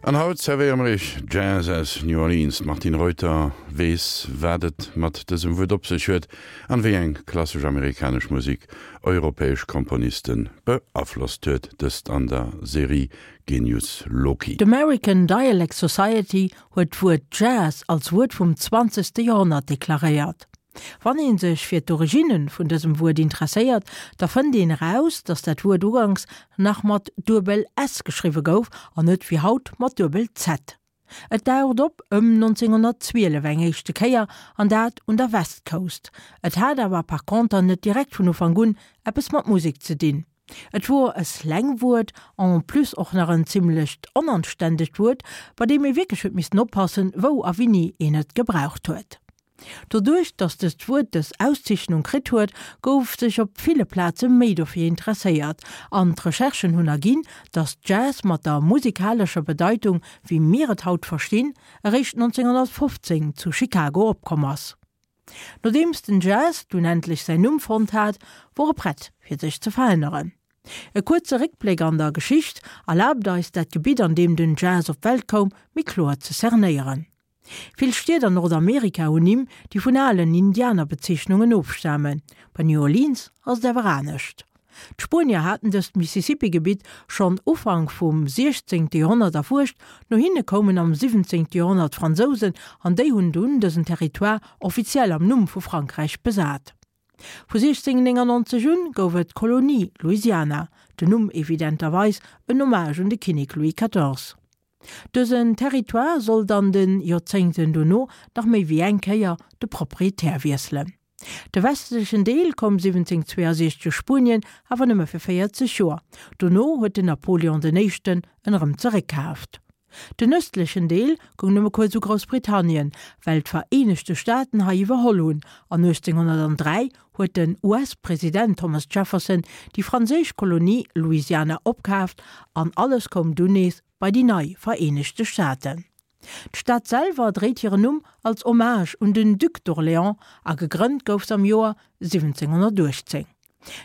An haut zerwéiere mer iech Jazz aus New Orleans. D'Martine Reuter weess, wat et mat dësem Wuert op sech huet an wéi eng klassesch amerikanesch Musek europäesch Komponiste beaflosst huet. Dëst an der Serie Genius Loci. D'American Dialect Society huet d'Wuert Jazz als Wuert vum zwanzegste Joerhonnert deklaréiert. Wann ee sech fir d'Originne vun dësem Wuert interesséiert, da fënnt een eraus, datt dat Wuert uganks nach mat duebel s geschriwwe gouf an net wéi haut mat duebel z. Et daucht op ëm 1912 eng éischte Kéier, an dat un der West Coast. Et hat awer par conter net direkt vun Ufank un eppes mat Musek ze dinn. Et wor e Slangwuert, en plus och nach en zimmlecht onanständegt Wuert, bei deem ee wierklech huet missten oppassen, wou a winni een et gebraucht huet. Doduerch, datt dëst Wuert dës Auszeechnung kritt huet, gouf sech op ville Plaze méi dofir interesséiert, an d'Recherchen hunn erginn, datt Jazz mat der musikalescher Bedeitung, wéi mir et haut verstinn, eréischt 1915 zu Chicago opkomm ass. Nodeems den Jazz dunn endlech säin Numm fonnt hat, wor e prett fir sech ze veränneren. E kuerze Réckbléck an der Geschicht erlaabt eis, dat Gebitt an deem den Jazz op d'Welt koum, méi kloer ze cernéieren. Vill Stied an Nordamerika hunn Nimm, déi vun alen Indianerbezeechnungen ofstamen. Bei New Orleans ass et awer anescht. D'Spuenier haten dëst Mississippi-Gebitt schonn Ufank vum 16. Joerhonnert erfuerscht, no hinne koumen am 17. Joerhonnert d'Fransousen an déi hunn dunn dësen Territoire offiziell am Numm vu Frankräich besat. Vu 1699 un gouf et d'Kolonie Louisiana, den Numm evidenterweis en Hommage un de Kinnek Louis 14. Dësen Territoire sollt an de Joerzéngten dono nach méi wéi eng Kéier de Proprietär wiesselen. De westlechen Deel koum 1762 Spuenien, awer nëmme fir 40 Joer. Dono huet den Napoleon den Éischten en erëm zeréckkaaft. Den ëstlechen Deel goung nëmme kuerz u Groussbritannien, well d'Vereenegte Staaten hei iwwerholl hunn, an 1803 huet den US-President Thomas Jefferson déi franséisch Kolonie Louisiana opkaaft an alles koum dunn nees bei déi nei Vereenegte Staaten. D'Stad selwer dréit hiren Numm als Hommage un den Duc d'Orléans a gegrënnt gouf s'am Joer 1718.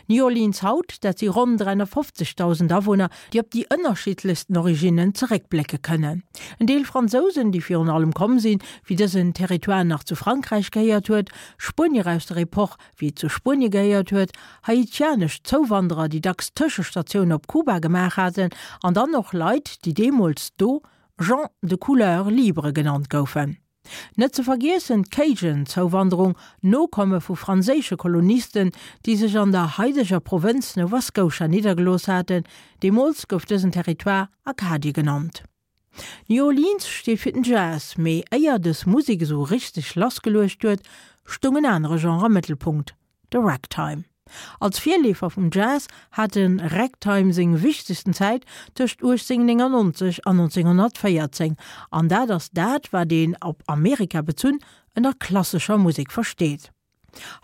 New Orleans haut, dat si ronn 350.000 Awunner, déi op déi ënnerschiddlechsten Originnen zeréckblécke kënnen. En Deel Fransousen, déi virun allem komm sinn, wéi dësen Territoire nach zu Frankräich gehéiert huet, Spuenier aus der Epoch, wéi et zu Spuenie gehéiert huet, haitianesch Zouwanderer, déi dacks Tëschestatioun op Kuba gemaach haten, an dann och Leit, déi deemools do Gens de couleur libre genannt goufen. Net ze vergiessen d'Cajun-Zouwanderung, Nokomme vu franséische Kolonisten, déi sech an der haideger Provënz Nova Scotia niddergelooss haten. Deemools gouf dësen Territoire Acadie genannt. New Orleans steet fir den Jazz, mee éier dës Musek esou richteg lassgeluecht huet, stoung en anere Genre am Mëttelpunkt, de Ragtime. Als Virleefer vum Jazz hat de Ragtime seng wichtegsten Zäit tëscht 1899 an 1914, an dat ass dat, wat een, op Amerika bezunn, ënner klassescher Musek versteet.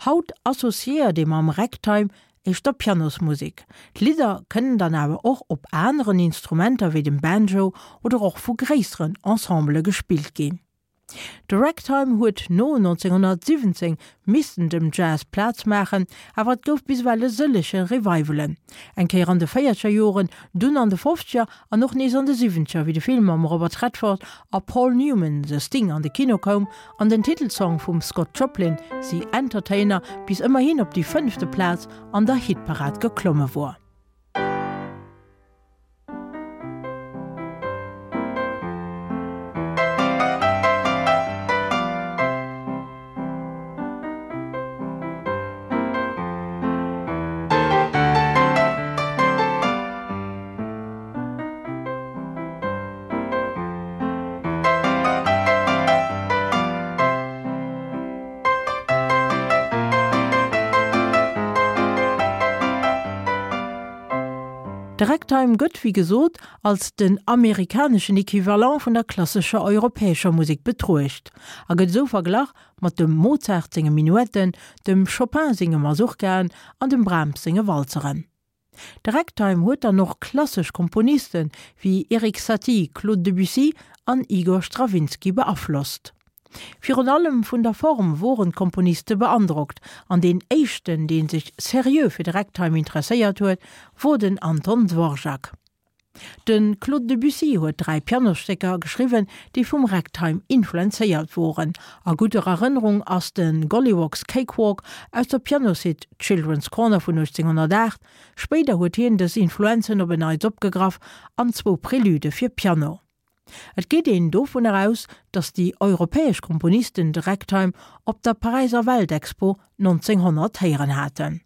Haut associéiert ee mam Ragtime éischter Pianosmusek. D'Lidder kënnen dann awer och op aneren Instrumenter wéi dem Banjo oder och vu gréisseren Ensembele gespillt ginn. De Ragtime huet no 1917 missten dem Jazz Plaz maachen, awer et gouf bis ewell e sëllege Revivalen. Eng Kéier an de véierzeger Joren, dunn an de fofzeger an och nees an de siwwenzeger, wéi de Film mam Robert Redford a Paul Newman The Sting an de Kino koum an den Titelsong vum Scott Joplin The Entertainer bis ëmmerhin op déi fënnefte Plaz an der Hitparad geklomme wor. De Ragtime gëtt, wéi gesot, als den amerikaneschen Equivalent vun der klassescher europäescher Musek betruecht a gëtt esou verglach mat dem Mozart senge Minuetten, dem Chopin senge Masurkaen an dem Brahms senge Walzeren. De Ragtime huet dann och klassesch Komponiste wéi Erik Satie, Claude Debussy an Igor Strawinsky beaflosst. Virun allem vun der Form woren d'Komponiste beandrockt, an deen éischten, dee sech seriö fir de Ragtime interesséiert huet, wor den Anton Dvorak. De Claude Debussy huet 3 Pianosstécker geschriwwen, déi vum Ragtime influenzéiert woren. A gudder Erënnerung ass de Golliwogg's Cakewalk aus der Pianosuite Children's Corner vun 1808. Spéider huet hien dës Influenzen op en Neits opgegraff an zwou Prelude fir Piano. Et geet een dovunner aus, datt déi europäesch Komponisten de Ragtime op der Paräiser Weltexpo 1900 héieren haten.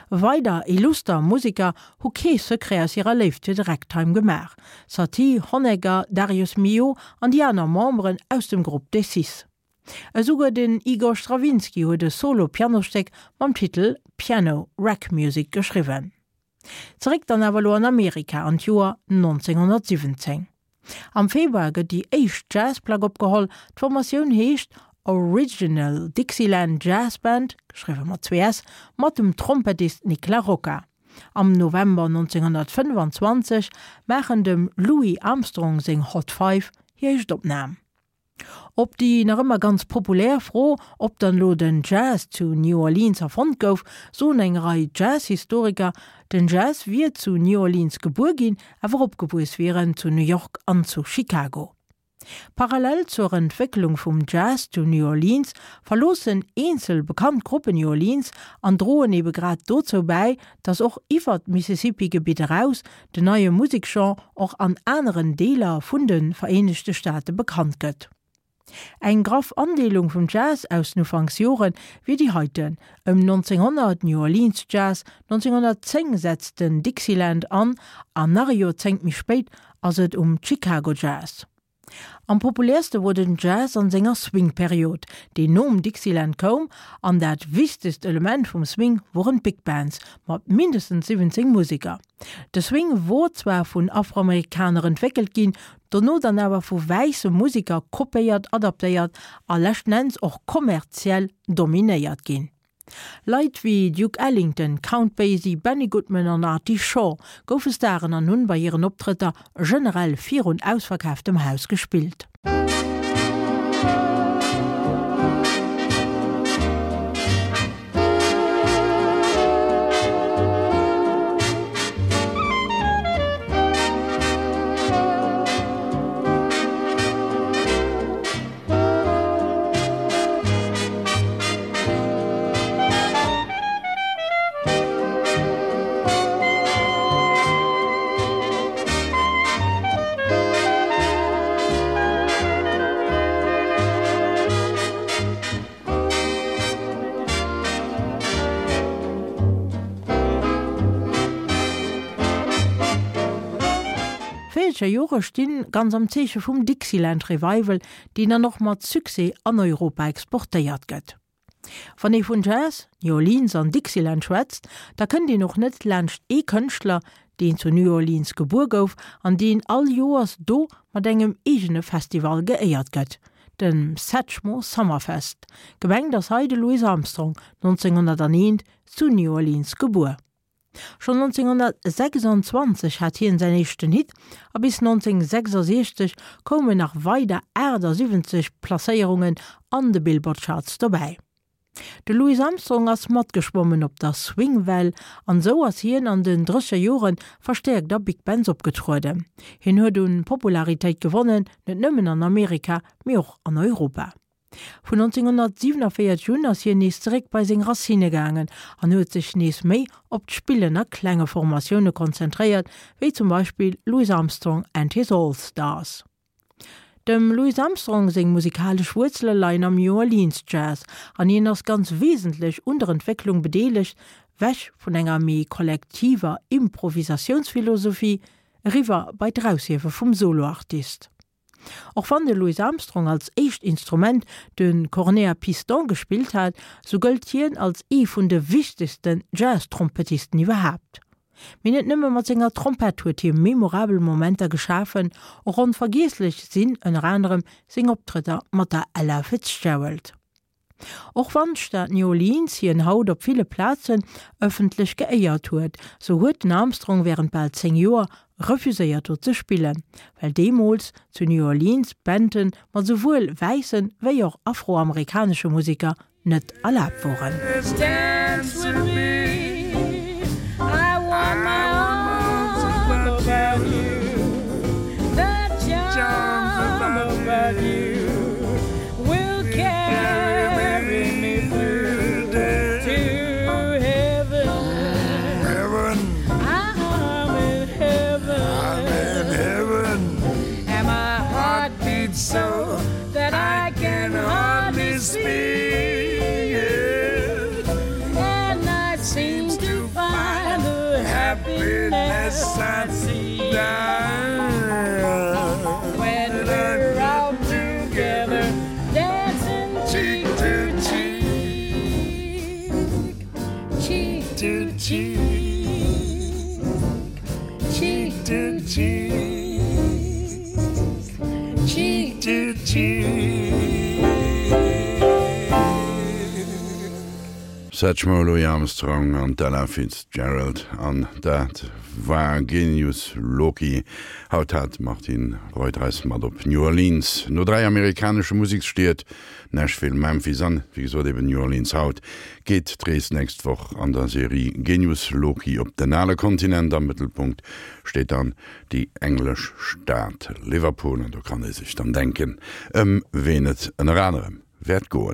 Weider illuster Museker hu kee Secret aus hirer Léift fir de Ragtime gemaach, Satie, Honegger, Darius Milhaud an déi aner Memberen aus dem Grupp des Six. Esouguer den Igor Strawinsky huet e Solo-Pianostéck mam Titel Piano Rag Music geschriwwen. Zeréck dann awer elo an Amerika an d'Joer 1917. Am Februar gëtt déi éischt Jazzplack opgeholl. D'Formatioun heescht Original Dixieland Jazz Band, geschriwwe mat zwee s, mat dem Trompettist Nick La Rocca. Am November 1925 maachen dem Louis Armstrong seng Hot Five hir éischt Opnam. Op déi nach ëmmer ganz populär Fro, ob dann elo den Jazz zu New Orleans erfonnt gouf, soen eng Rei Jazz-Historiker, den Jazz wier zu New Orleans gebuer ginn, awer opgewuess wier en zu New York an zu Chicago. Parallel zur Entwécklung vum Jazz zu New Orleans verloossen eenzel bekannt Gruppen New Orleans an droen ebe grad dozou bäi, datt och iwwer d'Mississippi-Gebitt eraus den neie Museksgenre och an aneren Deeler vun de Vereenegte Staate bekannt gëtt. Eng graff Andeelung vum Jazz aus den Ufanksjore wier déi heiten, ëm 1900 New Orleans Jazz, 1910 setzt den Dixieland an an nach e Joerzéngt méi spéit ass et um Chicago Jazz. Am populäerste wor den Jazz an senger Swing-Period, déi nom Dixieland koum, an dat wichtegst Element vum Swing woren d'Big Bands mat mindestens 17 Museker. De Swing wor zwar vun Afroamerikaner entwéckelt ginn, dono dann awer vu wäisse Museker kopéiert, adaptéiert a leschten Enns och kommerziell dominéiert ginn. Leit wéi Duke Ellington, Count Basie, Benny Goodman an Artie Shaw goufe Staren an hunn bei hiren Optrëtter generell virun ausverkaaftem Haus gespillt. D'Véierzeger Jore stinn ganz am Zeeche vum Dixieland Revival, deen dann och mat Succès an Europa exportéiert gëtt. Wann ee vun Jazz, New Orleans an Dixieland schwätzt, da kënnt een och net laanscht ee Kënschtler, deen zu New Orleans gebuer gouf an deen all Joers do mat engem eegene Festival geéiert gëtt, dem Satchmo Summerfest. Gemengt ass hei de Louis Armstrong, 1901 zu New Orleans gebuer. Schonn 1926 hat hien säin éischten Hit a bis 1966 koumen nach weider 78 Placéierungen an de Billboard Charts dobäi. De Louis Armstrong ass matgeschwommen op der Swing-Well an esou ass hien an den drësseger Jore verstäerkt a Big Bands opgetrueden. Hien huet un Popularitéit gewonnen, net nëmmen an Amerika, mee och an Europa. Vun 1947 un ass hien nees zeréck bei seng Racinne gaangen an huet sech nees méi op d'Spillen a klenge Formatioune konzentréiert, wéi zum Beispill Louis Armstrong and his All Stars. Dem Louis Armstrong seng musikalesch Wuerzele leien am New Orleans Jazz an hien ass ganz wesentlech un der Entwécklung bedeelegt, wech vun enger méi kollektiver Improvisatiounsphilosophie eriwwer bei d'Eraushiewe vum Soloartist. Och wann de Louis Armstrong als éischt Instrument de Cornet à piston gespillt hat, sou gëllt hien als ee vun de wichtegsten Jazz-Trompettisten iwwerhaapt. Mee net nëmme mat senger Trompett huet hie memorabel Momenter geschafen, och onvergiesslech sinn ënner anerem seng Optrëtter mat der Ella Fitzgerald. Och wann d'Stad New Orleans hien haut op ville Plazen ëffentlech geéiert huet, sou huet den Armstrong wärend bal 10 Joer refuséiert do ze spillen, well deemools zu New Orleans Banden mat souwuel wäisse wéi och afroamerikanesche Museker net erlaabt woren. about you will carry me through to heaven. Heaven. I'm in heaven. I'm in heaven. And my heart beats so that I can hardly speak. And I seem to find the happiness I see when we're out together dancing cheek to cheek, cheek to cheek, cheek to cheek, cheek to cheek. Satchmo, Louis Armstrong an d'Ella Fitzgerald an dat war Genius Loci. Haut hat d'Martine Reuter eis mat op New Orleans. No 3 amerikanesche Museksstied, Nashville, Memphis an, wéi gesot, eben New Orleans haut, geet d'Rees nächst Woch an der Serie Genius Loci op den ale Kontinent. Am Mëttelpunkt steet dann déi englesch Stad Liverpool an do kann ee sech dann denken, ëm ween et ënner anerem wäert goen.